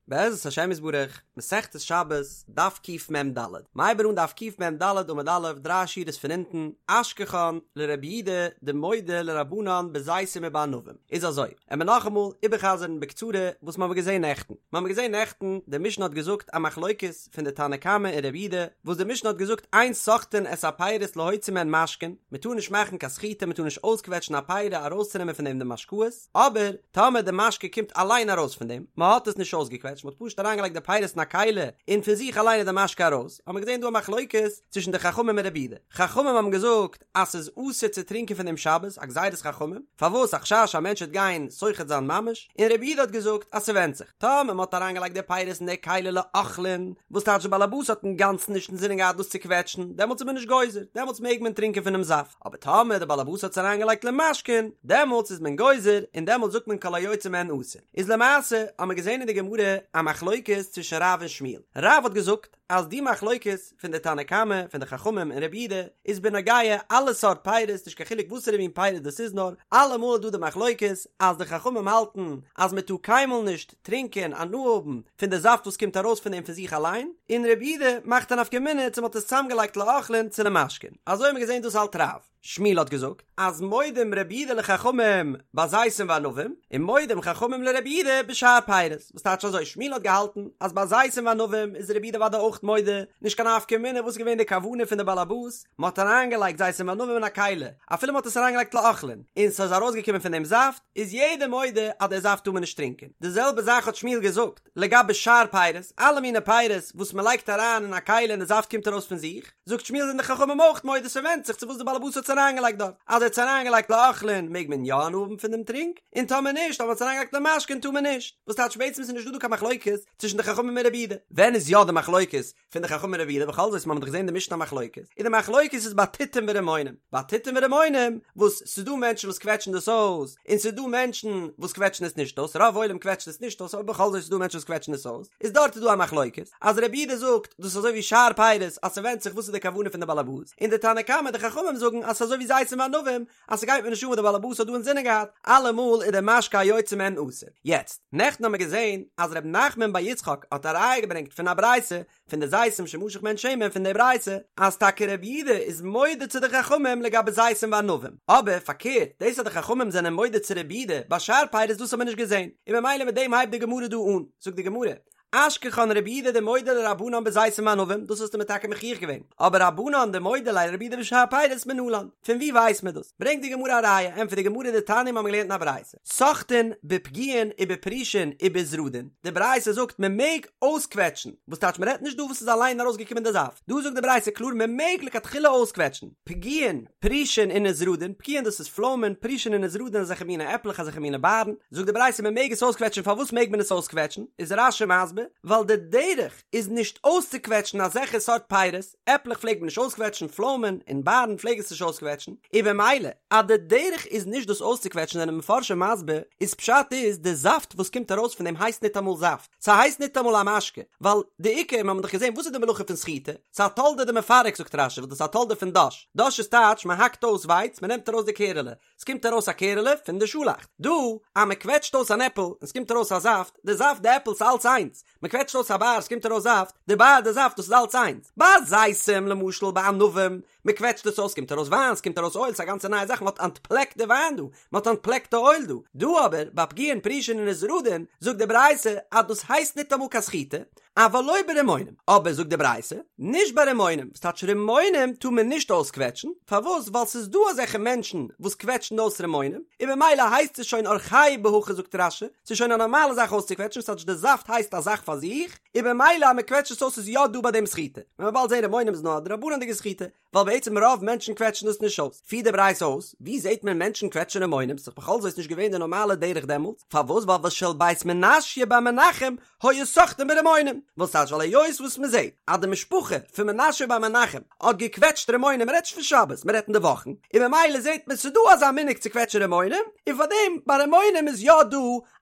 בעזרת השם יתברך, מסכת שבת, דף קמ"ד. מ'הייבט אן דף קמ"ד עמוד א', דריי שורות פון אונטן, אשכחן לרבי יהודה דמודה לרבנן בזיתים ובענבים. איז אזוי, עמיר נאכאמאל איבערחזר'ן בקצרה וואס מ'האמיר געזען נעכטן. מ'האמיר געזען נעכטן, די משנה האט געזאגט א מחלוקת פון די תנא קמא און רבי יהודה, וואס די משנה האט געזאגט אין סוחטין את הפירות להוציא מהן משקין, מ'טאר נישט מאכן קיין סחיטה, מ'טאר נישט אויסקוועטשן א פירה ארויסצונעמען פון דעם די משקאות, אבער טאמער די משקה קומט אליין ארויס פון דעם, מען האט עס נישט אויסגעקוועטשט, מען האט פשוט אריינגעלייגט די פירות אין א כלי און פון זיך אליין איז די משקה ארויס, האט מען געזען דא א מחלוקת צווישן די חכמים און רבי יהודה. חכמים האבן געזאגט אז ס'איז אסור צו טרינקען פון דעם שבת, א גזירת חכמים, פארוואס? א חשש א מענטש וועט גיין סוחט זיין ממש, און רבי יהודה האט געזאגט אז ס'ווענדט זיך, טאמער מען האט אריינגעלייגט די פירות אין די כלי לאוכלין, וואס טייטש די באלעבאס האט אינגאנצן נישט אינזינען געהאט דאס צו קוועטשן, דעמאלטס איז מען נישט גוזר, דעמאלטס מעג מען טרינקען פונעם זאפט. אבער טאמער די באלעבאס האט עס אריינגעלייגט למשקין, דעמאלטס איז מען גוזר, און דעמאלטס זאגט מען כל היוצא מהן אסור. איז למעשה האט מען געזען אין די גמרא א מחלוקת צווישן רב און שמואל. רב האט געזאגט אז די מחלוקת פון די תנא קמא, פון די חכמים און רבי יהודה, איז בנוגע אלע סארט פירות, נישט קיין חילוק וואסערע מין פירות דאס איז נאר, אלעמאל איז דא די מחלוקת אז די חכמים האלטן אז מען טאר קיינמאל נישט טרינקען, הנאה האבן, פון די זאפט וואס קומט ארויס פון דעם פון זיך אליין, און רבי יהודה מאכט א נפקא מינה צו מ'האט עס צוזאמגעלייגט לאוכלין צו למשקין. אזוי האט מען געזען דאס האלט רב. שמואל האט געזאגט אז מודים רבי יהודה לחכמים בזיתים וענבים, און מודים חכמים לרבי יהודה בשאר פירות, וואס טייטש אזוי שמואל האט געהאלטן אז ביי זיתים וענבים איז רבי יהודה אוודאי אויך מודה, נישט קיין נפקא מינה וואס איז געווען די כוונה פון די בעל הבית, מ'האט אריינגעלייגט זיתים וענבים אין א כלי, אפילו מ'האט עס אריינגעלייגט לאוכלין, און ס'איז ארויסגעקומען פון דעם זאפט, איז יעדער מודה אז די זאפט טאר מען נישט טרינקען. די זעלבע זאך האט שמואל געזאגט לגבי שאר פירות, אלע מיני פירות וואס מען לייגט אריין אין א כלי און די זאפט קומט ארויס פון זיך, זאגט שמואל זענען די חכמים אויך מודה ס'ווענדט זיך צו וואס די בעלעבאס האט עס אריינגעלייגט דארט, אז ער האט עס אריינגעלייגט לאוכלין מעג מען יא הנאה האבן פון דעם טרינק, און טאמער נישט, אויב מען האט עס אריינגעלייגט למשקין טאר מען נישט. וואס טייטש בעצם איז נישט דא דא קיין מחלוקת צווישן די חכמים און רבי יהודה. ווען איז יא די מחלוקת פון די חכמים און רבי יהודה בכל זאת מ'האט דאך געזען די משנה א מחלוקת און די מחלוקת איז ביי תותים ורימונים ביי תותים ורימונים וואס ס'איז דא מענטשן וואס קוועטשן דאס אויס און ס'איז דא מענטשן וואס קוועטשן עס נישט אויס רוב עולם קוועטשט עס נישט אויס אבער בכל זאת איז דא מענטשן וואס קוועטשן עס אויס איז דארט איז דא א מחלוקת אז רבי יהודה זאגט דאס איז אזוי ווי שאר פירות אז ס'ווענדט זיך וואס איז די כוונה פון די בעלעבאס און די תנא קמא די חכמים זאגן אז ס'איז אזוי ווי זיתים וענבים אז ס'גייט מיר נישט אן וואס די בעלעבאס האט דא אינזינען געהאט, אלעמאל איז די משקה היוצא מהן אסור. יעצט, נעכטן האמיר געזען אז ר' נחמן בר יצחק האט א ראיה געברענגט פון א ברייתא פון די זיתים שמשך מהן שמן פון די ברייתא אז טאקע רבי יהודה איז מודה צו די חכמים לגבי זיתים וענבים, אבער פארקערט דאס אז די חכמים זענען מודה צו רבי יהודה ביי שאר פירות דאס האמיר נישט געזען, און ממילא מיט דעם הייבט די גמרא דא אן, זאגט די גמרא, אשכחן רבי יהודה דמודה לרבנן בזיתים וענבים, דאס האסטו מיר טאקע מוכיח געווען, אבער רבנן דמודו ליה לרבי יהודה בשאר פירות מנלן, פון ווי ווייסט מען דאס? ברענגט די גמרא א ראיה, ענטפערט די גמרא דתניא מיר האבן געלערנט אין א ברייתא, סוחטין בפגיעין ובפרושין ובזרדין, די ברייתא זאגט מען מעג אויסקוועטשן, וואס טייטש מען רעדט נישט דא וואס איז אליין ארויסגעקומען די זאפט, דא זאגט די ברייתא קלאר מען מעג לכתחילה אויסקוועטשן, פגיעין, פרושין און נזרדין, פגיעין דאס איז פלוימען, פרושין און נזרדין אזעלכע מיני עפלעך אזעלכע מיני בארן, זאגט די ברייתא מען מעג עס אויסקוועטשן פארוואס מעג מען עס אויסקוועטשן, איז רש"י מסביר, ווייל די דרך איז נישט אויסצוקוועטשן אזעלכע סארט פירות, עפלעך פלעגט מען נישט אויסקוועטשן, פלוימען און בארן פלעג עס נישט אויסקוועטשן, און במילא אז די דרך איז נישט דאס אויסצוקוועטשן זענען מפרשים מסביר, איז פשט איז די זאפט וואס קומט ארויס פון דעם הייסט ניטאמאל זאפט, ס'הייסט ניטאמאל א משקה, ווייל די עיקר, מיר האבן דאך געזען וואס איז די מלאכה פון סחיטה, ס'איז א תולדה דמפרק זאגט רש"י וואס דאס איז א תולדה פון דש, דש איז טייטש מען האקט אויס ווייץ מען נעמט ארויס די קערעלע, ס'קומט ארויס א קערעלע פון די שאלאכט, דא אז מען קוועטשט אויס אן עפל און ס'קומט ארויס א זאפט, די זאפט די עפל ס'איז אלץ איינס, מען קוועטשט אויס א באר ס'קומט ארויס זאפט, די באר די זאפט דאס איז אלץ איינס, ביי זיתים למשל ביי ענבים, מען קוועטשט עס אויס ס'קומט ארויס וויין ס'קומט ארויס אויל ס'איז א גאנצע נייע זאך מען האט אנטפלעקט די וויין דא, מען האט אנטפלעקט די אויל דא, דא אבער ביי פגיעין פרושין און נזרדין זאגט די ברייתא אז דאס הייסט ניטאמאל קיין סחיטה, אבל לא ברימונים, אבער זאגט די ברייתא, נישט ביי רימונים, וואס טייטש רימונים טאר מען נישט אויסקוועטשן, פארוואס ווייל ס'איז דא אזעלכע מענטשן וואס קוועטשן אויס רימונים, און ממילא הייסט עס שוין אורחיה בהכי זאגט רש"י, ס'איז שוין א נארמאלע זאך אויסצוקוועטשן, וואס טייטש די זאפט הייסט א זאך פאר זיך, און ממילא אז מען קוועטשט עס אויס איז יא דא ביי דעם סחיטה, ווען מ'וועט באלד זען רימונים איז נאר א דרבנן'דיגע סחיטה, ווייל בעצם רוב מענטשן קוועטשן דאס נישט אויס, פירט די ברייתא אויס, ווי זעט מען מענטשן קוועטשן רימונים, ס'איז בכל זאת נישט געווען די נארמאלע דרך דעמאלטס, פארוואס ווייל ושל בית מנשיא בר מנחם היו סוחטין ברימונים, וואס טייטש ווייל היות וואס מען זעט אז די משפחה פון מנשיא בר מנחם האט געקוועטשט רימונים, מען רעדט נישט פון שבת, מען רעדט אין די וואכן, און ממילא זעט מען ס'איז דא אזא מנהג צו קוועטשן רימונים, און פארדעם ביי רימונים איז יא דא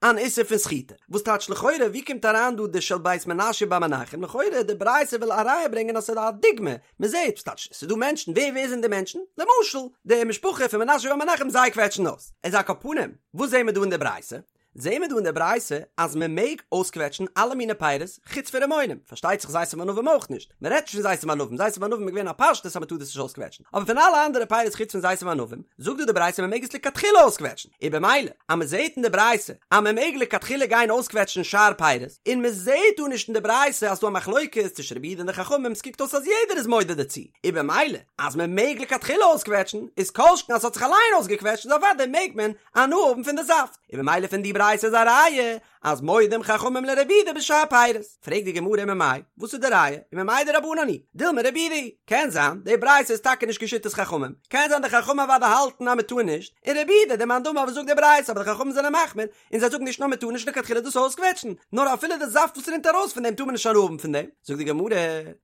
אן איסור פון סחיטה. וואס טייטש לכאורה ווי קומט אריין דא די של בית מנשיא בר מנחם, לכאורה די ברייתא וויל א ראיה ברענגען אז ס'איז א דוגמא, מען זעט, וואס טייטש, ס'איז דא מענטשן, ווער ווער זענען די מענטשן? למשל, די משפחה פון מנשיא בר מנחם זיי קוועטשן אויס. איז על כל פנים, וואס זעהן מיר דא אין די ברייתא? זעהן מיר דא אין די ברייתא אז מען מעג אויסקוועטשן אלע מיני פירות חוץ פון רימונים, פארשטייט זיך זיתים וענבים אויך נישט, מען רעדט נישט פון זיתים וענבים, זיתים וענבים איז געווען א פשטות אז מען טאר דאס נישט אויסקוועטשן, אבער פון אלע אנדערע פירות חוץ פון זיתים וענבים, זאגט דא די ברייתא מען מעג עס לכתחילה אויסקוועטשן, און במילא אז מען זעהט אין די ברייתא אז מען מעג לכתחילה גיין אויסקוועטשן שאר פירות, און מען זעהט דא נישט אין די ברייתא אז ס'דא א מחלוקת צווישן רבי יהודה און די חכמים, ס'קוקט אויס אז יעדער איז מודה דערצו, און במילא אז מען מעג לכתחילה אויסקוועטשן, איז כל שכן אז ס'האט זיך אליין אויסגעקוועטשט איז אוודאי מעג מען הנאה האבן פון די זאפט, און במילא פון די ברייתא איז א ראיה אז מודים חכמים לרבי יהודה בשאר פירות. פרעגט די גמרא וממאי, וואס איז די ראיה? וממאי דרבנן היא? דילמא רבי יהודה היא. קען זיין די ברייתא איז טאקע נישט כשיטת חכמים, קען זיין די חכמים אוודאי האלטן אז מען טאר נישט, און רבי יהודה די מאן דאמר וואס זאגט די ברייתא אבער די חכמים זענען מחמיר און זיי זאגן נישט נאר מען טאר נישט לכתחילה דאס אויסקוועטשן, נאר אפילו די זאפט וואס רינט ארויס פון דעם טאר מען נישט הנאה האבן פון דעם. זאגט די גמרא,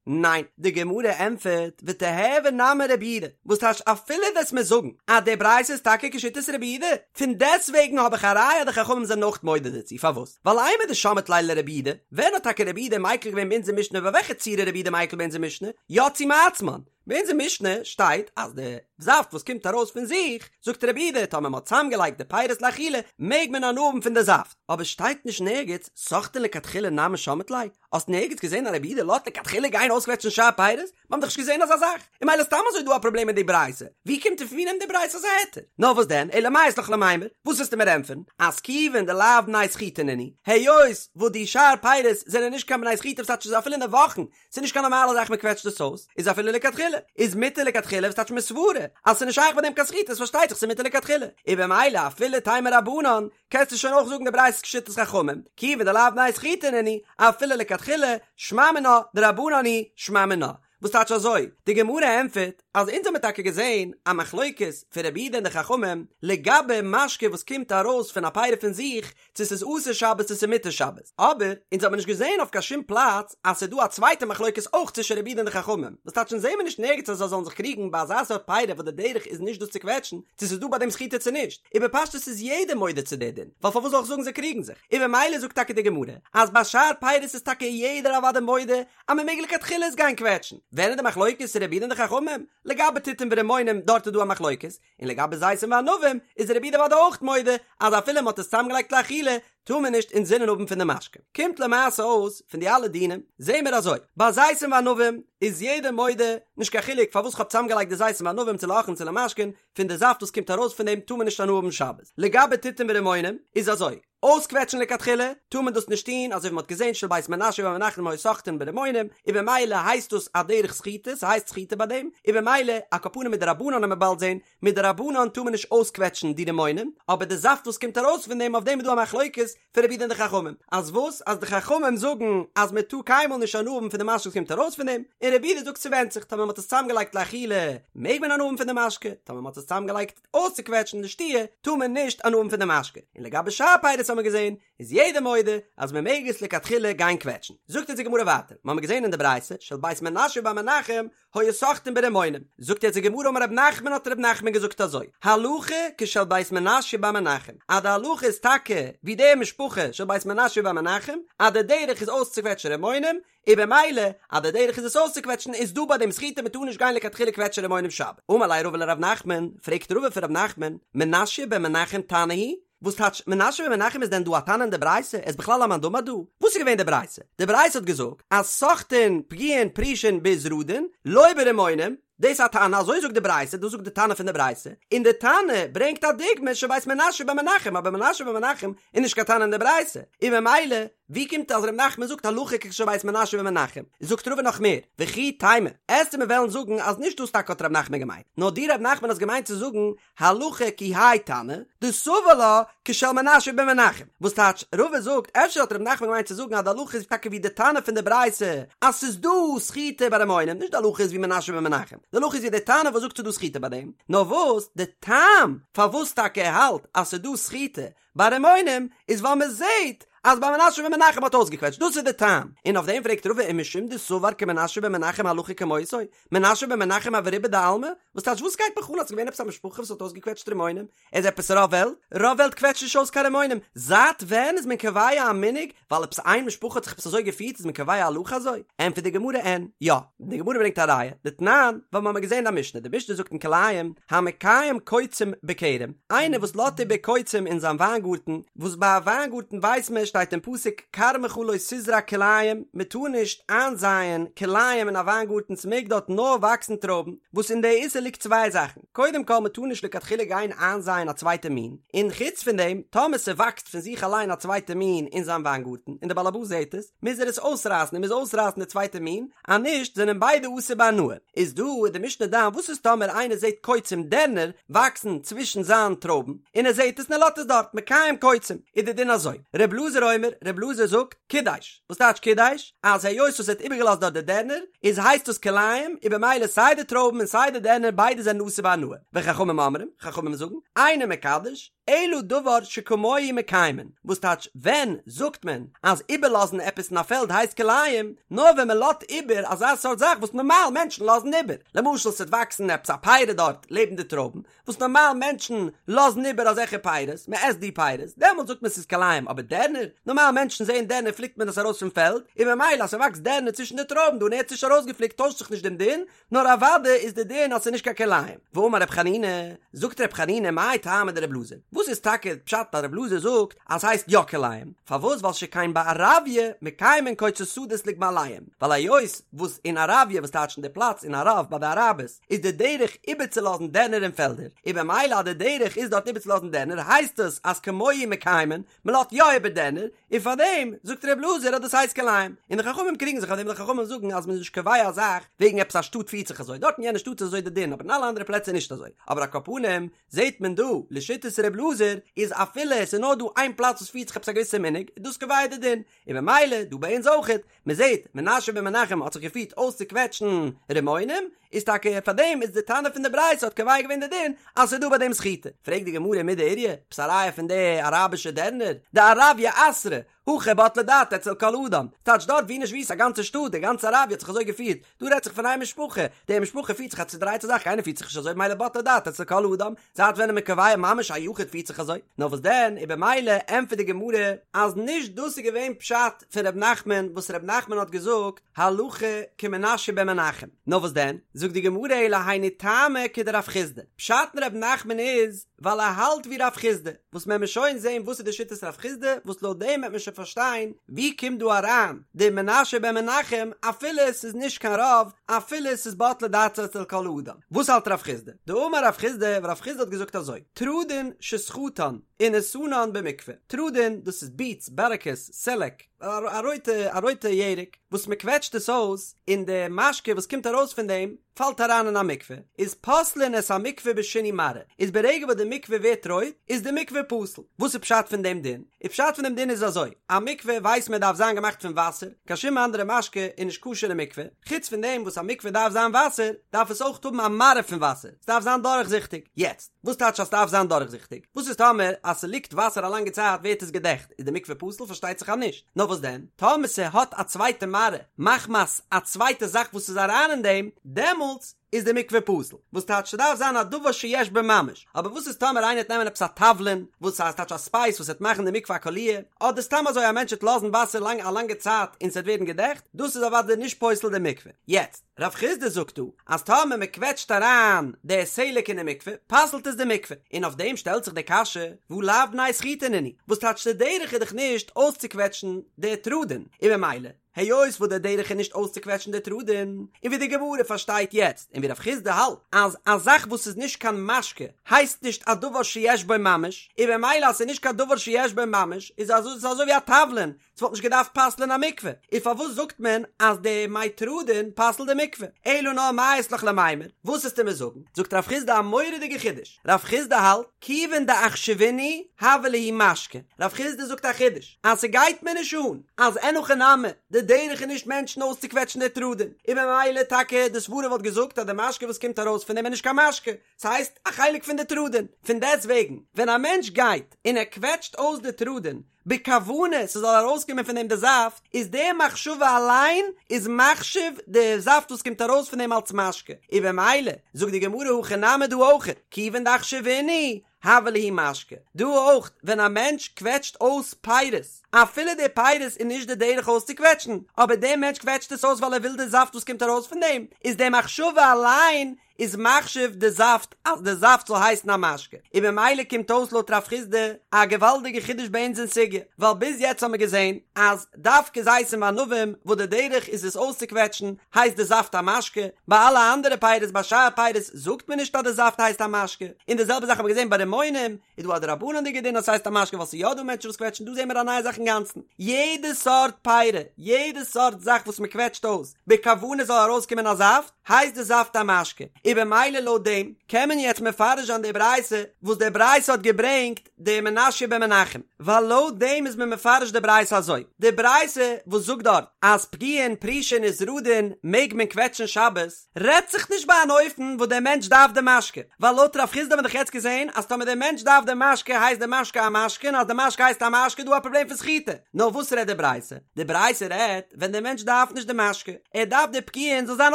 ניין, די גמרא ענטפערט, ותיהוי נמי רבי יהודה, וואס טייטש אפילו וועסט מיר זאגן אז די ברייתא איז טאקע כשיטת רבי יהודה, פון דעסטוועגן האב איך א ראיה אז די חכמים זענען אויך מודה דערצו, פארוואס? ווייל אימר דשמעת ליה לרבי יהודה, ווען האט טאקע רבי יהודה מיקל געווען ביי אונזער משנה ביי וועלכע צורה רבי יהודה מיקל ביי אונזער משנה? יצאו מעצמן, ביי אונזער משנה שטייט אז די זאפט וואס קומט ארויס פון זיך, זאגט רבי יהודה, טאמער מ'האט צוזאמגעלייגט די פירות לאכילה, מעג מען הנאה האבן פון די זאפט, אבער שטייט נישט נערגעץ, סוחטין לכתחילה נמי שמעת ליה, האסט נערגעץ געזען אז רבי יהודה לאזט לכתחילה גיין אויסקוועטשן שאר פירות? מ'האט דאך נישט געזען אזא זאך, און ממילא סתם אזוי דא א פראבלעם מיט די ברייתא, ווי קומט און פון ווי נעמט די ברייתא אזא היתר? נאר וואס דען, אלא מאי אית לך למימר, וואס וועסטו מיר ענטפערן, אז כיוון דלאו בני סחיטה נינהו, היות וואס די שאר פירות זענען נישט קיין בני סחיטה וואס טייטש איז אפילו אין די וואכן, ס'איז נישט קיין נארמאלע זאך מ'קוועטשט עס אויס, איז אפילו לכתחילה, איז מותר לכתחילה וואס טייטש מסברא אז ס'איז נישט שייך ביי דעם קיין סחיטה איז פארשטייט זיך ס'איז מותר לכתחילה, און במילא אפילו תימא רבנן, קענסטו שוין אויך זאגן די ברייתא איז כשיטת חכמים, כיוון דלאו בני סחיטה נינהו, אפילו לכתחילה, שמע מינה, דרבנן היא, שמע מינה. וואס טייטש אזוי? די גמרא ענטפערט אז אונז האמיר טאקע געזען א מחלוקת פון רבי יהודה און די חכמים לגבי משקה וואס קומט ארויס פון א פירי פון זיך, צו ס'איז אסור שבת צו ס'איז מותר שבת, אבער אונז האמיר נישט געזען אויף קיין שום פלאץ אז ס'איז דא א צווייטע מחלוקת אויך צווישן רבי יהודה און די חכמים, וואס טייטש אונז זעמיר נישט נערגעץ אז זיי זאלן זיך קריגן ביי אזא סארט פירי וואס די דרך איז נישט דאס צו קוועטשן, צו ס'איז דא ביי דעם סחיטה צו נישט, און בפשטות איז יעדער מודה צו די דין, ווייל פארוואס זאל איך זאגן זיי קריגן זיך, און במילא זאגט טאקע די גמרא אז ביי שאר פירות איז טאקע יעדער אוודאי מודה אז מ'מעג לכתחילה עס גיין קוועטשן, ווען איז די מחלוקת רבי יהודה און די חכמים? לגבי תותים ורימונים דארט איז דא א מחלוקת, און לגבי זיתים וענבים איז רבי יהודה אוודאי אויך מודה אז אפילו מ'האט עס צוזאמגעלייגט לאכילה טאר מען נישט אינזינען האבן פון די משקה. קומט למעשה אויס פון די אלע דינים זעהן מיר אזוי, ביי זיתים וענבים איז יעדער מודה, נישט קיין חילוק פארוואס כ'האב צוזאמגעלייגט די זיתים וענבים צו לאוכלין צו למשקין, פון די זאפט וואס קומט ארויס פון דעם טאר מען נישט הנאה האבן שבת. לגבי תותים ורימונים איז אזוי, אויסקוועטשן לכתחילה טאר מען דאס נישט טון, אזוי ווי מען האט געזען של בית מנשיא בר מנחם היו סוחטין ברימונים, און במילא הייסט דאס א דרך סחיטה, ס'הייסט סחיטה ביי דעם, און במילא על כל פנים מדרבנן וועט מען באלד זען, מדרבנן טאר מען נישט אויסקוועטשן די רימונים, אבער די זאפט וואס קומט ארויס פון דעם אויף דעם איז דא א מחלוקת פון רבי יהודה און די חכמים, אז וואס? אז די חכמים זאגן אז מען טאר קיינמאל נישט הנאה האבן פון די משקה וואס קומט ארויס פון דעם, און רבי יהודה זאגט ס'ווענדט זיך, טאמער מען האט עס צוזאמגעלייגט לאכילה מעג מען הנאה האבן פון די משקה, טאמער מען האט עס צוזאמגעלייגט אויסצוקוועטשן לשתיה טאר מען נישט הנאה האבן פון די משקה, און לגבי שאר פירות האט מען געזען איז יעדער מודה אז מען מעג עס לכתחילה גיין קוועטשן. זאגט אונז די גמרא ווייטער, מיר האבן געזען אין די ברייתא של בית מנשיא בר מנחם היו סוחטין ברימונים, זאגט יעצט די גמרא אמר רב נחמן האט רב נחמן געזאגט אזוי, הלכה כשל בית מנשיא בר מנחם, אז די הלכה איז טאקע ווי די משפחה של בית מנשיא בר מנחם, אז די דרך איז אויסצוקוועטשן רימונים, און במילא אז די דרך איז עס אויסצוקוועטשן איז דא ביי דעם סחיטה מען טאר נישט גיין לכתחילה קוועטשן רימונים שבת. אמר ליה רבא לרב נחמן, פרעגט רבא פון רב נחמן, מנשיא בן מנחם תנא הוא? וואס טייטש מנשיא בן מנחם איז דען דא א תנא אין די ברייתא? ער איז בכלל א מאן דאמר דא? וואס איז געווען די ברייתא? די ברייתא האט געזאגט אז סוחטין פגיעין פרושין בעזרדין לא ברימונים, דאס איז א תנא, אזוי זאגט די ברייתא, דאס זאגט די תנא פון די ברייתא, און די תנא ברענגט א דוגמא של בית מנשיא בן מנחם, אבער מנשיא בן מנחם איז נישט קיין תנא אין די ברייתא, און ממילא ווי קומט אז ר' נחמן זאגט הלכה כשל בית מנשיא בן מנחם? זאגט רבא נאך מער, וכי תימא, עסטו מיר וועלן זאגן אז נישט דאס טאקע האט ר' נחמן געמיינט, נאר דו ר' נחמן האסט געמיינט צו זאגן הלכה כי האי תנא, דסבר לה כשל מנשיא בן מנחם, וואס טייטש, רבא זאגט, אפשר האט ר' נחמן געמיינט צו זאגן אז די הלכה איז טאקע ווי די תנא פון די ברייתא, אז ס'איז דא סחיטה ביי רימונים, נישט די הלכה איז ווי מנשיא בן מנחם, די הלכה איז ווי די תנא וואס זאגט ס'איז דא סחיטה ביי דעם, נאר וואס די טעם פארוואס טאקע ער האלט אז ס'איז דא סחיטה ביי רימונים איז ווייל מען זעהט אז ביי מנשה בן מנחם האט אויסגעקוועטשט, דאס איז די טעם, און אויף דעם פרעגט רבא ומשום דסבר כמנשה בן מנחם הלכה כמותו, מנשה בן מנחם הוה רובא דעלמא? וואס טייטש וואס גייט מיך אן אז ס'איז געווען עפעס א משפחה וואס האט אויסגעקוועטשט רימונים? איז עפעס רוב וועלט? רוב וועלט קוועטשט נישט אויס קיין רימונים, זייט ווען איז מען קובע א מנהג ווייל עפעס איין משפחה האט זיך עפעס אזוי געפירט איז מען קובע א הלכה אזוי? ענטפערט די גמרא אין, יא, די גמרא ברענגט א ראיה, דתנן, ווייל מ'האמיר געזען א משנה, די משנה זאגט אין כלאים, המקיים קוצים בכרם, איינער וואס לאזט איבער קוצים אין זיין וויינגארטן, וואס ביי א וויינגארטן ווייסט מען שטייט אין פסוק כרמך לא תזרע כלאים, מען טאר נישט איינזייען כלאים אין א וויינגארטן ס'מעג דארט נאר וואקסן טרויבן, וואס אין די איסור ליגט צוויי זאכן, קודם כל מען טאר נישט לכתחילה גיין איינזייען א צווייטע מין, און חוץ פון דעם טאמער ס'וואקסט פון זיך אליין א צווייטע מין אין זיין וויינגארטן און די באלעבאס זעט עס, מוז ער עס אויסרייסן ער מוז אויסרייסן די צווייטע מין, אז נישט זענען ביידע אסור בהנאה. איז דא איז די משנה דן וואס איז טאמער איינער זעט קוצים דערנער וואקסן צווישן זיין טרויבן און ער זעט עס און ער לאזט עס דארט מקיים קוצים איז די דין אזוי ר' אלעזר אומר ר' אלעזר זאגט קידש וואס טייטש קידש אז היות וואס ער האט איבערגעלאזט דארט די דערנער איז הייסט דאס כלאים און במילא סיי די טרויבן און סיי די דערנער ביידע זענען אסור בהנאה וחכמים אומרים חכמים זאגן אינו מקדש אלא דבר שכמוהו מקיימין, וואס טייטש ווען זאגט מען אז איבערלאזן עפעס אין א פעלד הייסט כלאים? נאר ווען מען לאזט איבער אזא סארט זאך וואס נארמאל מענטשן לאזן איבער, למשל ס'וועט וואקסן עפעס א פרי דארט לעבן די טרויבן, וואס נארמאל מענטשן לאזן איבער אזעלכע פירות, מען עסט די פירות, דעמאלט זאגט מען ס'איז כלאים, אבער דערנער? נארמאל מענטשן זעען דערנער פליקט מען עס ארויס פון פעלד, און ממילא אז ס'וואקסט דערנער צווישן די טרויבן דא און ער האט עס נישט ארויסגעפליקט טוישט זיך נישט דעם דין, נאר אוודאי איז די דין אז ס'איז נישט קיין כלאים. ואמר רב חנינא, זאגט רב חנינא מאי טעמא דרב אלעזר, וואס איז טאקע פשט אז רב אלעזר זאגט אז ס'הייסט יא כלאים, פארוואס ווייל שכן בערביא מקיימין קוצי שדות לגמליהם, ווייל היות וואס אין ערביא וואס טייטש אין די פלאץ אין ערב ביי די אראבערס איז די דרך איבערצולאזן דערנער אין פעלדער, און במילא אז די דרך איז דארט איבערצולאזן דערנער הייסט עס אז כמוהו מקיימין, מען לאזט יא איבער דערנער, און פאר דעם זאגט ר' אלעזר אז דאס הייסט כלאים, און די חכמים קריגן זיך אויף דעם, די חכמים זאגן אז מען איז נישט קובע א זאך וועגן עפעס א שטאט פירט זיך אזוי, דארט אין יענע שטאט איז אזוי די דין, אבער אין אלע אנדערע פלעצער נישט אזוי, אבער על כל פנים זעט מען דא לשיטת ר' אלעזר איז אפילו עס איז נאר דא איין פלאץ וואס פירט זיך עפעס א געוויסע מנהג איז דאס קובע די דין, און במילא דא ביי אונז אויכעט, מען זעט מנשה בן מנחם האט זיך געפירט אויסצוקוועטשן רימונים, איז טאקע פאר דעם איז די תנא פון די ברייתא האט קובע געווען די דין אז ס'איז דא ביי דעם סחיטה. פרעגט די גמרא מידי איריא, עפעס א ראיה פון די אראבישע דערנער, דערביא אתרא, הכא בטלה דעתה אצל כל אדם, טייטש דארט ווי נישט ווי איז א גאנצע שטאט, די גאנצע ערביא האט זיך אזוי געפירט, דא רעדט זיך פון איין משפחה, די משפחה פירט זיך א צודרייטע זאך, קיינער פירט זיך נישט אזוי ממילא בטלה דעתה אצל כל אדם, זייט ווען איז מען קובע ממש א יחיד פירט זיך אזוי? נאר וואס דען, און במילא ענטפערט די גמרא אז נישט דאס איז געווען פשט פון ר' נחמן וואס ר' נחמן האט געזאגט הלכה כמנשה בן מנחם, נאר וואס דען, זאגט די גמרא אלא היינו טעמא כדרב חסדא, פשט אין ר' נחמן איז ווייל ער האלט ווי רב חסדא, וואס מען מוז שוין זען וואס איז די שיטת רב חסדא, וואס לויט דעם וועט מען שוין פארשטיין ווי קומט דא אריין די מנשה בן מנחם אפילו עס איז נישט קיין רוב, אפילו עס איז בטלה דעתו אצל כל אדם. וואס האלט רב חסדא? דאמר רב חסדא, רב חסדא האט געזאגט אזוי, תרדין שסחטן ונתנן במקווה, תרדין דאס איז ביטס, בערעקעס, סעלעק, א רויטע א רויטע ירק וואס מען קוועטשט עס אויס און די משקה וואס קומט ארויס פון דעם פאלט אריין אין א מקווה, איז פוסלין את המקווה בשינוי מראה, איז ברגע וואס די מקווה ווערט רויט איז די מקווה פסול. וואס איז פשט פון דעם דין? איז פשט פון דעם דין איז אזוי, א מקווה ווייסט מען דארף זיין געמאכט פון וואסער, קיין שום אנדערע משקה איז נישט כשר אין מקווה, חוץ פון דעם וואס א מקווה דארף זיין וואסער, דארף עס אויך האבן א מראה פון וואסער, ס'דארף זיין דורכזיכטיג. יעצט, וואס טייטש אז ס'דארף זיין דורכזיכטיג? וואס איז טאמער אז ס'ליגט וואסער א לאנגע צייט ווערט עס געדעכט, איז די מקווה פסול? פארשטייט זיך אז נישט. נאר וואס דען? טאמער ס'האט א צווייטע מראה מחמת א צווייטע זאך וואס איז אריין אין דעם, דעמאלטס איז די מקווה פסול. וואס טייטש ס'דארף זיין א דבר שיש בו ממש. אבער וואס איז טאמער איינער וועט נעמען עפעס א תבלין, וואס הייסט טייטש א ספייס וואס וועט מאכן די מקווה א קאליר, אדער סתם אזוי א מענטש וועט לאזן וואסער לאנג א לאנגע צייט און ס'וועט ווערן געדעכט, דאס איז אוודאי נישט פוסל די מקווה. יעצט, רב חסדא זאגט דא אז טאמער מען קוועטשט אריין די סלק אין די מקווה, פסל'ט עס די מקווה. און אויף דעם שטעלט זיך די קשיא, והא לאו בני סחיטה נינהו, וואס טייטש די דרך איז דאך נישט אויסצוקוועטשן די תרדין, און ממילא, היות וואס די דרך איז נישט אויסצוקוועטשן די תרדין, און ווי די גמרא פארשטייט יעצט, און ווי רב חסדא האלט, אז א זאך וואס איז נישט קיין משקה הייסט נישט א דבר שיש בו ממש, און ממילא אז ס'איז נישט קיין דבר שיש בו ממש, איז אזוי ס'איז אזוי ווי א תבלין, ס'וואלט נישט געדארפט פסל'ען א מקווה, און פארוואס זאגט מען אז די מי תרדין פסל'ט די מקווה? אלא נאר מאי אית לך למימר, וואס וועסטו מיר זאגן? זאגט רב חסדא א מורא'דיגע חידוש, רב חסדא האלט, כיוון דאחשבינהו הוה להו משקה, רב חסדא זאגט א חידוש, אז ס'גייט מיר נישט אן אז אין הכי נמי, די דרך איז נישט מענטשן אויסצוקוועטשן די תרדין, און ממילא טאקע די סברה וואלט געזאגט אז די משקה וואס קומט ארויס פון דעם איז נישט קיין משקה, ס'הייסט א חלק פון די תרדין, פון דעסט וועגן ווען א מענטש גייט און ער קוועטשט אויס די תרדין בכוונה ס'זאל ארויסקומען פון דעם די זאפט, איז די מחשבה אליין איז מחשיב די זאפט וואס קומט ארויס פון דעם אלס משקה, און במילא זאגט די גמרא הכא נמי דא אויך, כיוון דאחשבינהו הוה להו משקה, דא אויך ווען א מענטש קוועטשט אויס פירות, אפילו די פירות איז נישט די דרך אויסצוקוועטשן, אבער דער מענטש קוועטשט עס אויס ווייל ער וויל די זאפט וואס קומט ארויס פון דעם, איז די מחשבה אליין איז מחשיב די זאפט אז די זאפט זאל הייסן א משקה, און ממילא קומט אויס לויט רב חסדא א געוואלדיגע חידוש ביי אונז אין סוגיא, ווייל ביז יעצט האמיר געזען אז דווקא זיתים וענבים וואס די דרך איז עס אויסצוקוועטשן הייסט די זאפט א משקה, ביי אלע אנדערע פירות ביי שאר פירות זאגט מען נישט אז די זאפט הייסט א משקה, און די זעלבע זאך האמיר געזען ביי רימונים איז דא א דרבנן'דיגע דין אז ס'הייסט א משקה ווייל ס'איז יא דא מענטשן וואס קוועטשן דא זעהן מיר א נייע זאך אינגאנצן, יעדע סארט פירה, יעדע סארט זאך וואס מ'קוועטשט אויס בכוונה זאל ארויסקומען א זאפט, הייסט די זאפט א משקה, און במילא לויט דעם קען מען יעצט מפרש זיין די ברייתא וואס די ברייתא האט געברענגט די מנשיא בן מנחם, ווייל לויט דעם איז מען מפרש די ברייתא אזוי, די ברייתא וואס זאגט דארט אז פגיעין פרישין ותרדין מעג מען קוועטשן שבת, רעדט זיך נישט ביי אן אופן וואס דער מענטש דארף די משקה, ווייל לויט רב חסדא האט מען דאך יעצט געזען אז טאמער דער מענטש דארף די משקה הייסט די משקה א משקה און אז די משקה הייסט א משקה איז דא א פראבלעם פון סחיטה, נאר וואס רעדט די ברייתא? די ברייתא רעדט ווען דער מענטש דארף נישט די משקה, ער דארף די פגיעין זאל זיין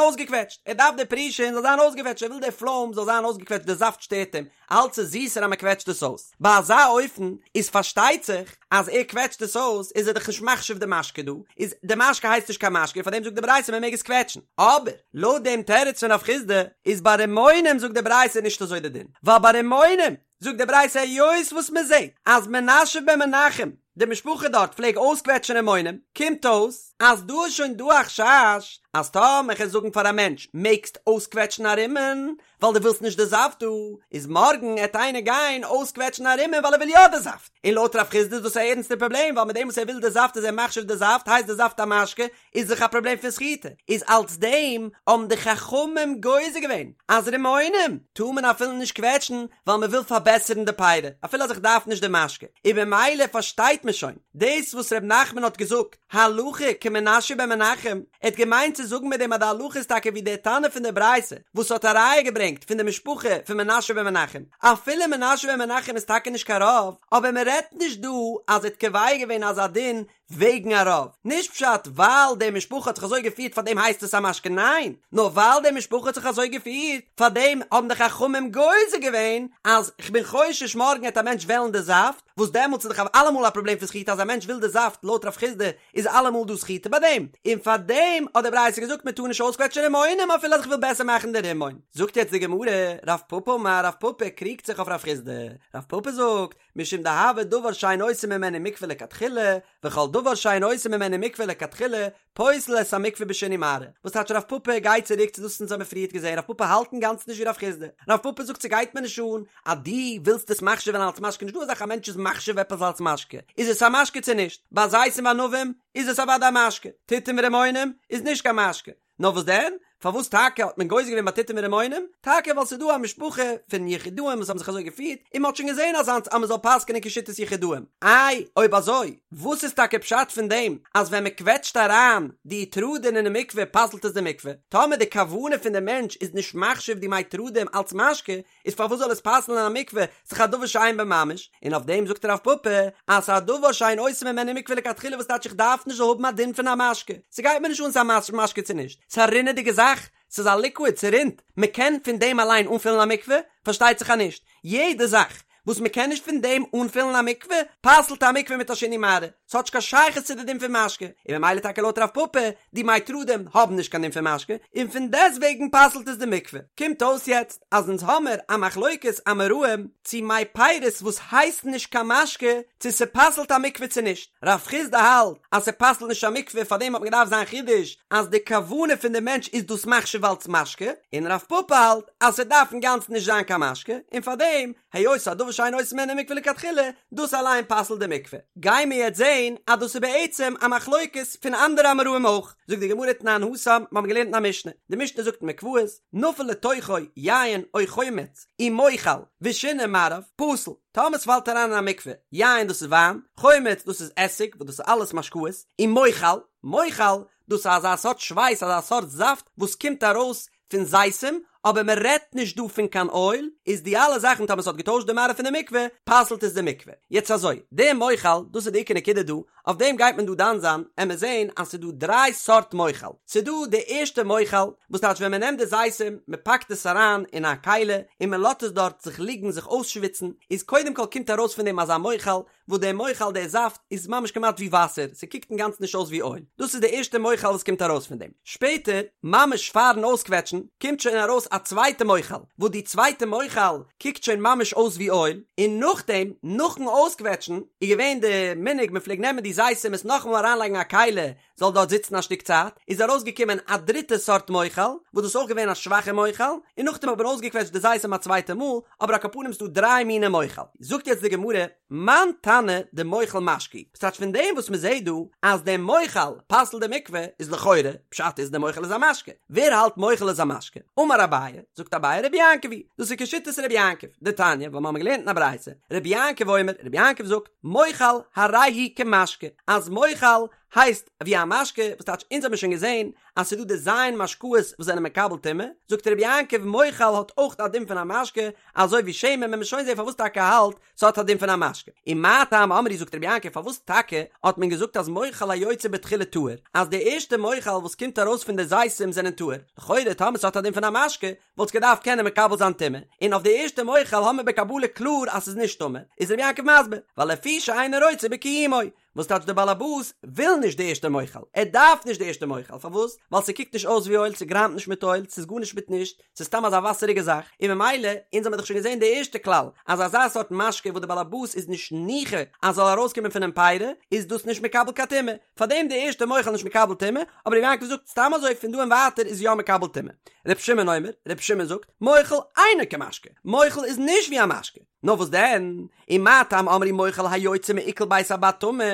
אויסגעקוועטשט, ער דארף די פרישין זאל זיין אויסגעקוועטשט, ער וויל די פלוים זאל זיין אויסגעקוועטשט, די זאפט שטערט אים, אלץ איז זיסער אז מען קוועטשט עס אויס. ביי אזא אופן איז פארשטייט זיך אז ער קוועטשט עס אויס איז ער דאך נישט מחשיב די משקה דא, איז די משקה הייסט נישט קיין משקה און פארדעם זאגט די ברייתא מען מעג עס קוועטשן. אבער לויט דעם תירוץ פון רב חסדא איז ביי רימונים זאגט די ברייתא נישט אזוי די דין, ווייל ביי רימונים זאגט די ברייתא היות וואס מען זעט אז מנשיא בן מנחם די משפחה דארט פלעג אויסקוועטשן רימונים, קומט אויס אז דא איז שוין דא א חשש אז טאמער כ'על זאגן פאר א מענטש מעגסט אויסקוועטשן א רימון ווייל דו ווילסט נישט די זאפט דא, איז מארגן עט איינער גיין אויסקוועטשן א רימון ווייל ער וויל יא די זאפט, און לויט רב חסדא איז דאס א ערנסטע פראבלעם ווייל מיט דעם וואס ער וויל די זאפט איז ער מחשיב די זאפט הייסט די זאפט א משקה איז דאך א פראבלעם פון סחיטה, איז אלס דעם האבן די חכמים גוזר געווען אז רימונים טאר מען אפילו נישט קוועטשן ווייל מען וויל פארבעסערן די פירי אפילו אז איך דארף נישט די משקה, און במילא פארשטייט מען שוין דאס וואס ר' נחמן האט געזאגט הלכה כמנשיא בן מנחם, ער האט געמיינט צו זאגן מיט דעם אז די הלכה איז טאקע ווי דער תנא פון די ברייתא וואס האט א ראיה געברענגט פון די משפחה פון מנשיא בן מנחם, אפילו מנשיא בן מנחם איז טאקע נישט קיין רב, אבער מען רעדט נישט דא אז ער האט קובע געווען אזא דין וועגן א רב, נישט פשט ווייל די משפחה האט זיך אזוי געפירט פאר דעם הייסט עס א משקה ניין, נאר ווייל די משפחה האט זיך אזוי געפירט פאר דעם האבן די חכמים גוזר געווען אז כ'בין חושש מארגן העט א מענטש וועלן די זאפט, וואס דעמאלטס איז דאך אלעמאל א פראבלעם פון סחיטה אז א מענטש וויל די זאפט לויט רב חסדא איז אלעמאל דא סחיטה ביי דעם, און פאר דעם האט די ברייתא געזאגט מען טאר נישט אויסקוועטשן רימונים אפילו אז כ'וויל בעסער מאכן די רימון. זאגט יעצט די גמרא, רב פפא אמר רב פפא קריגט זיך אויף רב חסדא, רב פפא זאגט, משום דהוי דבר שאין עושים ממנו מקווה לכתחילה, וכל דבר שאין עושים ממנו מקווה לכתחילה, פוסל את המקווה בשינוי מראה. וואס טייטש רב פפא גייט צוריק צו דאס וואס אונז האבן פריערט געזען, רב פפא האלט אינגאנצן נישט ווי רב חסדא, רב פפא זאגט ס'גייט מיר נישט אן אז דו ווילסט עס מחשיב'ן אלס משקה, נישט דא אזאך א מענטש איז מחשיב עפעס אלס משקה, איז עס א משקה צו נישט, ביי זיתים וענבים איז עס אוודאי א משקה, תותים ורימונים איז נישט קיין משקה, נאר וואס דען? פארוואס טאקע האט מען גוזר געווען ביי תותים ורימונים? טאקע ווייל ס'איז דא א משפחה פון יחידאים וואס האבן זיך אזוי געפירט, און מ'האט שוין געזען אזאנס אז מ'זאל פסק'נען כשיטת יחידאים. איי, אויב אזוי, וואס איז טאקע פשט פון דעם אז ווען מ'קוועטשט אריין די תרדין אינעם מקווה פסל'ט עס די מקווה? טאמער די כוונה פון די מענטש איז נישט מחשיב די מי תרדים אלץ משקה, איז פארוואס זאל עס פסל'ן א מקווה, ס'איז דאך א דבר שאין בו ממש, און אויף דעם זאגט רב פפא אז ס'איז א דבר שאין עושים ממנו מקווה לכתחילה וואס טייטש איך דארף נישט זאל האבן א דין פון א משקה, ס'גייט מיר נישט אן ס'איז א משקה צו נישט, ס'איז א רינעדיגע זאך, ס'איז א ליקוויד, ס'רינט, מ'קען פון דעם אליין אנפילן א מקווה? פארשטייט זיך אז נישט, יעדע זאך וואס מ'קען נישט פון דעם אנפילן א מקווה, פסל'ט א מקווה מיט א שינוי מראה, ס'האט נישט קיין שייכות צו די דין פון משקה, און ממילא טאקע לויט רב פפא, די מי תרדים האבן נישט קיין דין פון משקה, און פון דעסטוועגן פסל'ט עס די מקווה. קומט אויס יעצט אז אונז האמער א מחלוקת אמוראים צו מי פירות וואס הייסן נישט קיין משקה צו ס'פסל'ט א מקווה צו נישט. רב חסדא האלט אז ס'פסל'ט נישט א מקווה פארדעם האט מען געדארפט זיין חידוש אז די כוונה פון די מענטש איז דאס מחשיב אלץ משקה, און רב פפא האלט אז ס'דארף אינגאנצן נישט זיין קיין משקה און פארדעם היות ס'איז א דבר. שאין עושין ממנו מקווה לכתחילה, דאס אליין פסל'ט די מקווה. גיימיר יעצט זעהן אז דאס איז בעצם א מחלוקת פון אנדערע אמוראים אויך. זאגט די גמרא תנן התם, מיר האבן געלערנט אין א משנה, די משנה זאגט אין מקוואות, נפל לתוכו יין או חומץ ומוחל ושינה מראיו, פסול. טאמער ס'פאלט אריין אין א מקווה, יין דאס איז וויין, חומץ דאס איז עסיג וואס דאס איז אלעס משקאות, ומוחל, מוחל, דאס איז אזא סארט שווייס אזא סארט זאפט וואס קומט ארויס פון זיתים, אבער מען רעדט נישט דא פון קיין אויל, איז די אלע זאכן טאמער ס'האט געטוישט די מראה פון די מקווה, פסל'ט עס די מקווה. יעצט אזוי, די מוחל, דאס איז די עיקר נקודה דא, אויף דעם גייט מען דא דן זיין, עמער זעהן אז ס'איז דא דריי סארט מוחל, ס'איז דא די ערשטע מוחל, וואס טייטש ווען מען נעמט די זיתים, מען פאקט עס אריין אין א כלי, און מען לאזט עס דארט זיך ליגן זיך אויסשוויצן, איז קודם כל קומט ארויס פון דעם אזא מוחל, וואס דער מוחל דער זאפט איז ממש כמעט ווי וואסער, ס'קוקט אינגאנצן נישט אויס ווי אויל, דאס איז די ערשטע מוחל וואס קומט ארויס פון דעם, שפעטער ממש פארן אויסקוועטשן קומט שוין ארויס א צווייטע מוחל, וואס די צווייטע מוחל קוקט שוין ממש אויס ווי אויל, און נאכדעם נאכן אויסקוועטשן איז געווען די מנהג מען פלעגט נעמען די זיתים עס נאכאמאל אריינלייגן א כלי זאל דארט זיצן א שטיק צייט, איז ארויסגעקומען א דריטע סארט מוחל, וואס דאס איז אויך געווען א שוואכע מוחל, און נאכדעם האט מען אויסגעקוועטשט די זיתים א צווייטע מאל, אבער על כל פנים ס'דא דריי מיני מוחל. זאגט יעצט די גמרא, מאן תנא דמוחל משקה הוא, ס'טייטש פון דעם וואס מ'זעט דא אז דער מוחל פסל'ט די מקווה, איז לכאורה, פשט איז דער מוחל איז א משקה. ווער האלט מוחל איז א משקה? אמר אביי, זאגט אביי רבי יעקב היא, דאס איז כשיטת רבי יעקב, דתניא, ווייל מ'האמיר געלערנט אין א ברייתא, רבי יעקב אומר, רבי יעקב זאגט, מוחל הרי הוא כמשקה, אז מוחל הייסט ווי א משקה, וואס טייטש אונז האבן שוין געזען אז ס'איז דא די ז' משקאות וואס זענען מקבל טומאה, זאגט רבי יעקב מוחל האט אויך א דין פון א משקה, אזוי ווי שמן, וועט מען שוין זען פארוואס טאקע ער האלט ס'האט א דין פון א משקה. ומה טעם אמרו זאגט רבי יעקב פארוואס טאקע האט מען געזאגט אז מוחל היוצא בתחילה טהור, אז די ערשטע מוחל וואס קומט ארויס פון די זיתים זענען טהור, לכאורה טאמער ס'האט א דין פון א משקה וואלט עס געדארפט קענען מקבל זיין טומאה, און אויף די ערשטע מוחל האמיר בקבלה קלאר אז ס'איז נישט טמא, איז רבי יעקב מסביר, ווייל לפי שאינו רוצה בקיומו, וואס טייטש דער באלעבאס וויל נישט די ערשטע מוחל, ער דארף נישט די ערשטע מוחל, פארוואס? ווייל ס'קוקט נישט אויס ווי אויל, ס'גראמט נישט מיט אויל, ס'איז גארנישט מיט נישט, ס'איז סתם אזא וואסעריגע זאך, און ממילא, אונז האמיר דאך שוין געזען די ערשטע כלל, אז אזא סארט משקה וואס די באלעבאס איז נישט ניחא אז ס'זאל ארויסקומען פונעם פירי, איז דאס נישט מקבל קיין טומאה, פארדעם די ערשטע מוחל נישט מקבל טומאה, אבער רבי יעקב זאגט סתם אזוי פון דא און ווייטער איז יא מקבל טומאה. רבי שמעון אומר, רבי שמעון זאגט, מוחל אינו כמשקה, מוחל איז נישט ווי א משקה, נאר וואס דען? ומה טעם אמרו מוחל היוצא מעיקל בית הבד טמא,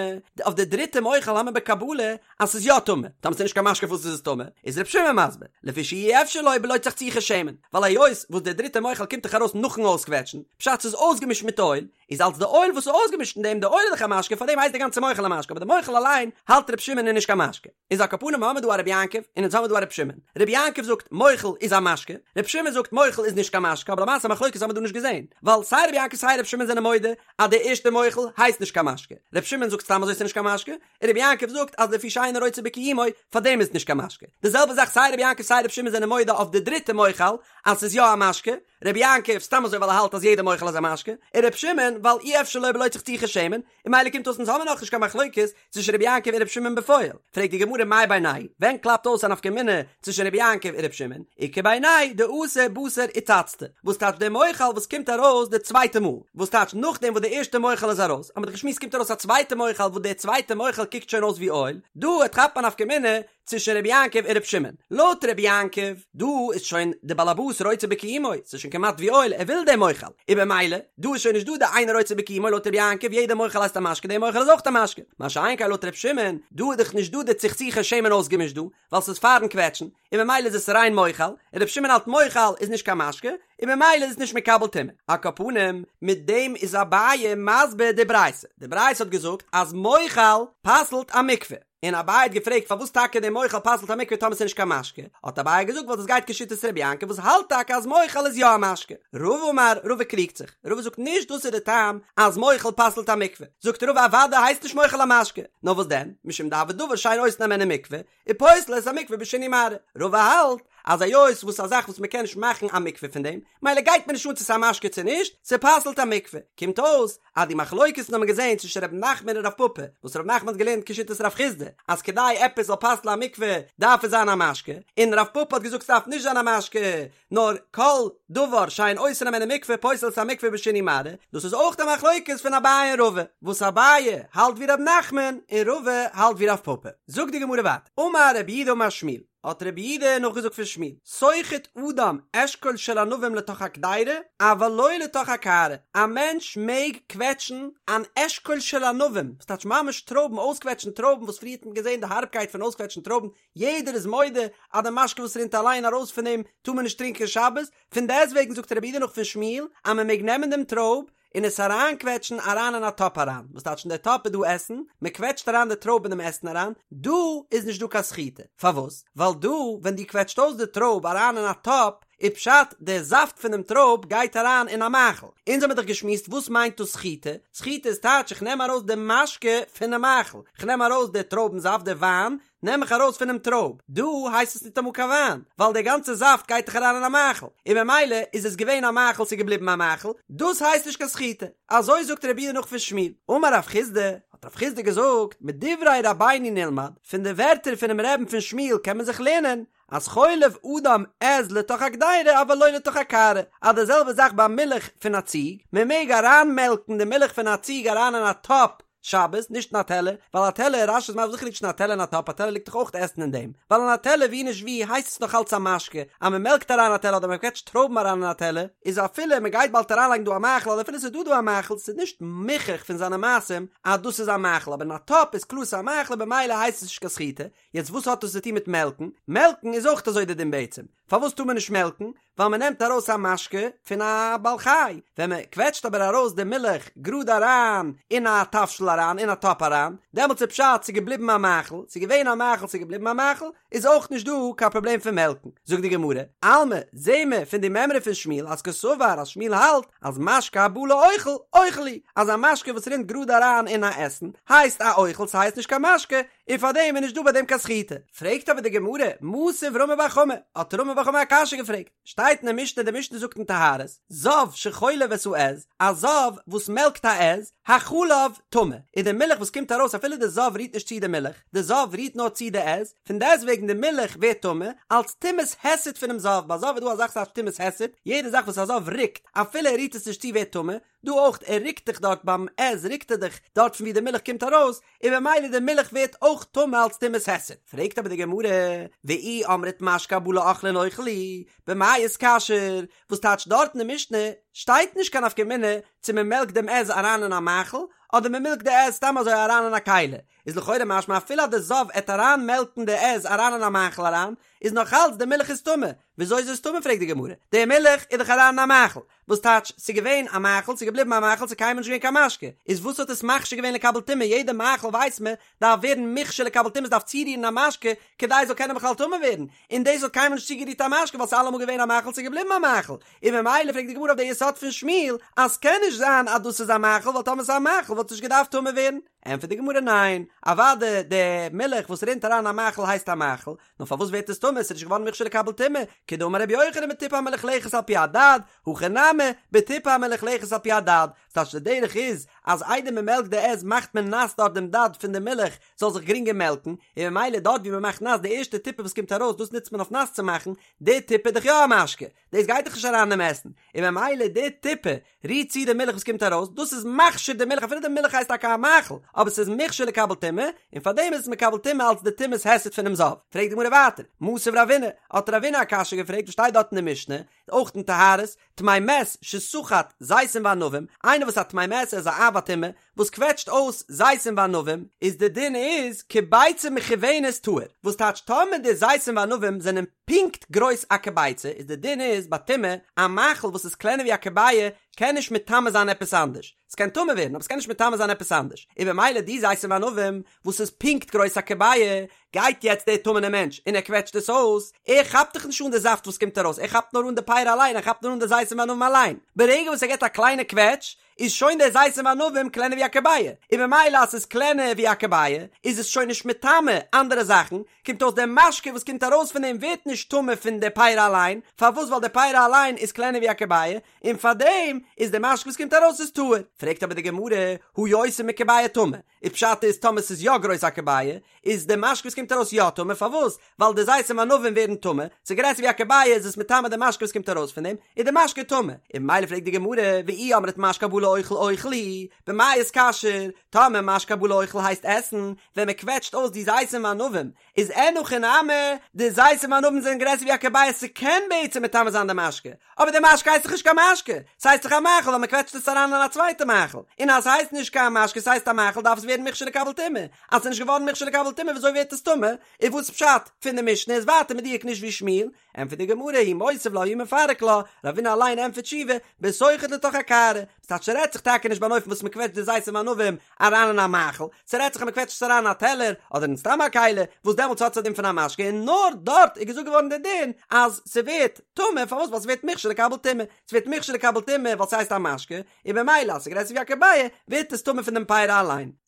אויף די דריטע מוחל האמיר בקבלה אז ס'איז יא טמא, טאמער ס'איז נישט קיין משקה פארוואס איז עס טמא? איז ר' שמעון מסביר, לפי שאי אפשר לו בלא צחצוחי שמן, ווייל היות וואס די דריטע מוחל קומט דאך ארויס נאכן אויסקוועטשן, פשט ס'איז אויסגעמישט מיט אויל, איז אלס די אויל וואס איז אויסגעמישט אין דעם, די אויל איז דאך א משקה פארדעם הייסט די גאנצע מוחל א משקה, אבער די מוחל אליין האלט ר' שמעון איז נישט קיין משקה. איז על כל פנים האמיר דא א רבי יעקב און אונז האמיר דא א רבי שמעון. רבי יעקב זאגט מוחל איז א משקה, רבי שמעון זאגט מוחל איז נישט קיין משקה, אבער למעשה מחלוקת האמיר דא נישט געזען, ווייל סיי רבי יעקב סיי רבי שמעון זענען מודה אז די ערשטע מוחל הייסט נישט קיין משקה, רבי שמעון זאגט סתם אזוי ס'נישט קיין משקה, און רבי יעקב זאגט אז לפי שאינו רוצה בקיומו פארדעם איז עס נישט קיין משקה. די זעלבע זאך סיי רבי יעקב סיי רבי שמעון זענען מודה אויף די דריטע מוחל אז ס'איז יא א משקה, רבי יעקב סתם אזוי ווייל ער האלט אז יעדע מוחל איז א משקה, און רבי שמעון ווייל אי אפשר לו בלא צחצוחי שמן, און ממילא קומט אויס אונז האמיר נאכנישט קיין מחלוקת צווישן רבי יעקב און רבי שמעון בפועל, פרעגט די גמרא מאי בינייהו ווען קלאפט אויס א נפקא מינה צווישן רבי יעקב און רבי שמעון, איכא בינייהו דאתי בתר איצצתא, וואס טייטש דער מוחל וואס קומט ארויס די צווייטע מאל, וואס טייטש נאכדעם וואס די ערשטע מוחל איז ארויס, האמיר דאך געשמועסט קומט ארויס א צווייטע מוחל וואס דער צווייטע מוחל קוקט שוין אויס ווי אויל, דא כאפט מען א נפקא מינה צווישן רבי יעקב און רבי שמעון. לויט רבי יעקב, דא איז שוין די באלעבאס רוצה בקיומו, ס'איז שוין כמעט ווי אויל, ער וויל דעם מוחל, און במילא, דא איז שוין נישט דא די אינו רוצה בקיומו לויט רבי יעקב, יעדע מוחל הייסט א משקה, דער מוחל איז אויך א משקה. מה שאין כן לויט רבי שמעון, דא איז דאך נישט דא די צחצוחי שמן אויסגעמישט דא, ווייל ס'איז פארן קוועטשן, און ממילא איז עס ריין מוחל, און רבי שמעון האלט מוחל איז נישט קיין משקה, און ממילא איז עס נישט מקבל טומאה. על כל פנים, מיט דעם איז אביי מסביר די ברייתא. די ברייתא האט געזאגט אז מוחל פסל'ט א מקווה. און אביי האט געפרעגט פארוואס טאקע דער מוחל פסל'ט א מקווה טאמער ס'איז נישט קיין משקה, האט אביי געזאגט ווייל דאס גייט כשיטת רבי יעקב וואס האלט טאקע אז מוחל איז יא א משקה. רבא אמר, רבא קריגט זיך, רבא זאגט נישט דאס איז די טעם אז מוחל פסל'ט א מקווה, זאגט רבא אוודאי הייסט נישט מוחל א משקה, נאר וואס דען, משום דהוי דבר שאין עושין הימנו מקווה, ופוסל את המקווה בשינוי מראה, רבא האלט אז היות וואס א זאך וואס מ'קען נישט מאכן א מקווה פון דעם, מילא גייט מיר נישט אן צו ס'איז א משקה צו נישט, ס'פסל'ט א מקווה, קומט אויס אז די מחלוקת האט מען געזען צווישן ר' נחמן און רב פפא, וואס ר' נחמן האט געלערנט כשיטת רב חסדא אז כדי עפעס זאל פסל'ן א מקווה דארף עס זיין א משקה, און רב פפא האט געזאגט ס'דארף נישט זיין א משקה נאר כל דבר שאין עושין הימנו מקווה פוסל את המקווה בשינוי מראה, דאס איז אויך די מחלוקת פון אביי און רבא, וואס אביי האלט ווי ר' נחמן און רבא האלט ווי רב פפא. זאגט די גמרא ווייטער, אמר רב יהודה אמר שמואל. האט רבי יהודה נאכגעזאגט פון שמואל, סוחט אדם אשכול של ענבים לתוך הקדירה, אבל לא לתוך הקערה, א מענטש מעג קוועטשן אן אשכול של ענבים, וואס טייטש ממש טרויבן, אויסקוועטשן טרויבן, וואס פריער האט מען געזען די הארבקייט פון אויסקוועטשן טרויבן, יעדער איז מודה אז די משקה וואס רינט אליין ארויס פון דעם טאר מען נישט טרינקען שבת, פון דעסטוועגן זאגט רבי יהודה נאך פון שמואל אז מען מעג נעמען דעם טרויב און עס אריינקוועטשן אריין אין א טאפ אריין, וואס טייטש אין די טאפ איז דא עסן, מען קוועטשט אריין די טרויב אין דעם עסן אריין, דא איז נישט דא קיין סחיטה, פארוואס? ווייל דא ווען דו קוועטשט אויס די טרויב אריין אין א טאפ, איז פשט די זאפט פונעם טרויב גייט אריין אין א מאכל, אונז האמיר דאך געשמועסט וואס מיינט דאס סחיטה, סחיטה איז טייטש איך נעם ארויס די משקה פונעם מאכל, איך נעם ארויס די טרויבן זאפט די וויין, נעם איך ארויס פונעם טרויב, דא הייסט עס ניטאמאל קיין וויין, ווייל דער גאנצער זאפט גייט דאך אריין אין א מאכל, און ממילא איז עס געווען א מאכל ס'איז געבליבן א מאכל, דאס הייסט נישט קיין סחיטה, אזוי זאגט רבי יהודה נאך פון שמואל, אמר רב חסדא, האט רב חסדא געזאגט, מדברי רבינו נלמד, פון די ווערטער פונעם רבי'ן פון שמואל קען מען זיך לערנען, אז חולב אדם עז לתוך הקדירה אבל לא לתוך הקערה, אז די זעלבע זאך ביי מילך פון א ציג, מען מעג אריינמעלקן די מילך פון א ציג אריין אין א טאפ שבת, נישט אין א טעלער, ווייל א טעלער, רש"י איז מסביר וואס ליגט אין א טעלער אין א טאפ, א טעלער ליגט דאך אויך עסן אין דעם, ווייל אין א טעלער ווי נישט ווי הייסט עס נאך אלץ א משקה, אז מען מעלקט אריין א טעלער אדער מען קוועטשט טרויבן אריין אין א טעלער, איז אפילו מען גייט באלד אריינלייגן דא א מאכל אדער אפילו ס'איז דא דא א מאכל, ס'איז נישט מוכח פון זיינע מעשים אז דאס איז א מאכל, אבער אין א טאפ איז קלאר ס'איז א מאכל און במילא הייסט עס נישט קיין סחיטה, יעצט וואס האט דאס צו טון מיט מעלקן? מעלקן איז אויך אזוי די דין בעצם. פארוואס טאר מען נישט מעלקן? ווייל מען נעמט ארויס א משקה פון א בעל חי. ווען מען קוועטשט אבער ארויס די מילך גראד אריין אין א תבשיל אריין, אין א טאפ אריין, דעמאלטס איז פשט ס'איז געבליבן א מאכל, ס'איז געווען א מאכל ס'איז געבליבן א מאכל, איז אויך נישט דא קיין פראבלעם פון מעלקן. זאגט די גמרא, אלמא, זעהן מיר פון די מימרא פון שמואל אז קסבר אז שמואל האלט אז משקה הבא לאוכל, אוכל הוא, אז א משקה וואס רינט גראד אריין אין א עסן, הייסט א אוכל ס'הייסט נישט קיין משקה, און פאר דעם איז נישט דא ביי דעם קיין סחיטה. פרעגט אבער די גמרא, מתיב רמי בר חמא, האט רמי בר חמא א קשיא געפרעגט, שטייט אין די משנה, די משנה זאגט אין טהרות, זב שחולב את העז, א זב וואס מעלקט א עז, החלב טמא, און די מילך וואס קומט ארויס אפילו די זב רירט נישט צו די מילך, די זב רירט נאר צו די עז, פון דעסטוועגן די מילך ווערט טמא, אלץ טומאת היסט פונעם זב, ביי זב איז דא א זאך וואס הייסט טומאת היסט, יעדע זאך וואס א זב רוקט, אפילו ער רירט עס נישט צו ווערט טמא, דא אויך, ער רוקט דאך דארט ביים עז רוקט ער דאך דארט פון ווי די מילך קומט ארויס, און במילא די מילך ווערט אויך טמא אלץ טומאת היסט. פרעגט אבער די גמרא, ואי אמרת משקה הבא לאוכלין אוכל הוא, במאי איתכשר, וואס טייטש דארט אין די משנה שטייט נישט קיין נפקא מינה צו מען מעלקט דעם עז אריין אין א מאכל אדער מען מילקט די עז סתם אזוי אריין אין א כלי, איז לכאורה משמע אפילו אז די זב עט אריין מעלקן די עז אריין אין א מאכל אריין, איז נאך אלץ די מילך איז טמא, וויאזוי איז עס טמא פרעגט די גמרא, די מילך איז דאך אריין אין א מאכל, וואס טייטש, ס'איז געווען א מאכל, ס'איז געבליבן א מאכל, ס'איז קיינמאל נישט געווען קיין משקה, איז וואס האט עס מכשיר געווען לקבל טומאה, יעדע מאכל ווייסט מען דארף ווערן מוכשר לקבל טומאה, ס'דארף צורירן א משקה כדי עס זאל קענען בכלל טמא ווערן, און דאס האט קיינמאל נישט צוגערירט א משקה ווייל ס'איז אלעמאל געווען א מאכל, ס'איז געבליבן א מאכל, און ממילא פרעגט די גמרא אויף די יסוד פון שמואל אז ס'קען נישט זיין אז דאס איז א מאכל ווייל טאמער ס'איז א מאכל וואלט עס נישט געדארפט טמא ווערן, ענטפערט די גמרא ניין, אוודאי די מילך וואס רינט אריין אין א מאכל הייסט א מאכל, נאר פארוואס ווערט עס טמא? עס איז נישט געווארן מוכשר לקבל טומאה, כדאמר רבי יוחנן בטיפה המלוכלכת על פי הדד, הכא נמי, בטיפה המלוכלכת על פי הדד, ס'טייטש די דרך איז אז איידער מען מעלקט די עז מאכט מען נאס דארט דעם דד פון די מילך זאל זיך גרינגער מעלקן, און ממילא דארט ווי מען מאכט נאס די ערשטע טיפה וואס קומט ארויס דאס נוצט מען אויף נאס צו מאכן, די טיפה איז דאך יא א משקה, דאס גייט דאך נישט אריין אינעם עסן, און ממילא די טיפה רירט צו די מילך וואס קומט ארויס, דאס איז מכשיר די מילך אפילו די מילך הייסט טאקע א מאכל, אבער ס'איז מוכשר לקבל טומאה, און פארדעם איז עס מקבל טומאה אלס די טומאת היסט פונעם זב. פרעגט די גמרא ווייטער, מתיב רבינא, האט רבינא א קשיא געפרעגט וואס שטייט דארט אין די משנה, אויך אין טהרות, טמא מת שסחט זיתים וענבים, איינער וואס א טמא מת ער איז א אב הטומאה, וואס קוועטשט אויס זיתים וענבים, איז די דין איז כביצה מכוונת טהור, וואס טייטש טאמער די זיתים וענבים זענען פונקט גרויס א כביצה, איז די דין איז ביי טומאה, א מאכל וואס איז קלענער ווי א כביעה קען נישט מטמא זיין עפעס אנדערש, ס'קען טמא ווערן אבער ס'קען נישט מטמא זיין עפעס אנדערש, און במילא די זיתים וענבים וואס איז פונקט גרויס א כביעה, גייט יעצט דער טמא'נער מענטש און ער קוועטשט עס אויס, ער כאפט דאך נישט אן די זאפט וואס קומט ארויס, ער כאפט נאר אן די פירי אליין, ער כאפט נאר אן די זיתים וענבים אליין, ברגע וואס ער געבט א קליינע קוועטש, איז שוין דער זיתים וענבים קלענער ווי א כביעה, און ממילא אז ס'איז קלענער ווי א כביעה, איז עס שוין נישט מטמא אנדערע זאכן, קומט אויס דער משקה וואס קומט ארויס פון דעם ווערט נישט טמא פון די פירי אליין, פארוואס ווייל די פירי אליין איז קלענער ווי א כביעה, און פארדעם איז דער משקה וואס קומט ארויס איז טהור. פרעגט אבער די גמרא, הא יותר מכביעה טמא, איז פשט איז טאמער ס'איז יא גרויס א כביעה, איז די משקה וואס קומט ארויס יא טמא, פארוואס? ווייל די זיתים וענבים ווערן טמא, ס'איז גרעסער ווי א כביעה איז עס מטמא די משקה וואס קומט ארויס פון דעם, איז די משקה טמא, און ממילא פרעגט די גמרא, ואי אמרת משקה הבא לאוכל. לאוכל אוכל הוא, במאי איתכשר, טאמער משקה הבא לאוכל הייסט עסן, ווען מען קוועטשט אויס די זיתים וענבים, איז אין הכי נמי, די זיתים וענבים זענען גרעסער ווי א כביצה ס'קען בעצם מטמא זיין די משקה, אבער די משקה הייסט דאך נישט קיין משקה, ס'הייסט דאך א מאכל ווייל מ'קוועטשט עס אריין אין א צווייטע מאכל, און אז ס'הייסט נישט קיין משקה ס'הייסט א מאכל דארף עס ווערן מוכשר לקבל טומאה, אז ס'איז נישט געווארן מוכשר לקבל טומאה וויאזוי ווערט עס טמא? און וואס פשט פון די משנה איז ווייטער מדויק נישט ווי שמואל, ענטפערט די גמרא הוא מותיב לה הוא מפרק לה, רבינא אליין ענטפערט תשובה, בסוחט לתוך הקערה, ס'טייטש ס'רעדט זיך טאקע נישט ביי אן אופן וואס מ'קוועטשט די זיתים וענבים אריין אין א מאכל, ס'רעדט זיך אז מ'קוועטשט עס אריין אין א טעלער אדער אין סתם א כלי, וואס דעמאלטס האט עס א דין פון א משקה און נאר דארט איז געזאגט געווארן די דין אז ס'ווערט טמא, פארוואס? ווייל ס'ווערט מוכשר לקבל טומאה, ס'ווערט מוכשר לקבל טומאה ווייל ס'הייסט א משקה, און במילא אז ס'גרעסער ווי א כביצה ווערט עס טמא פון דעם פרי אליין.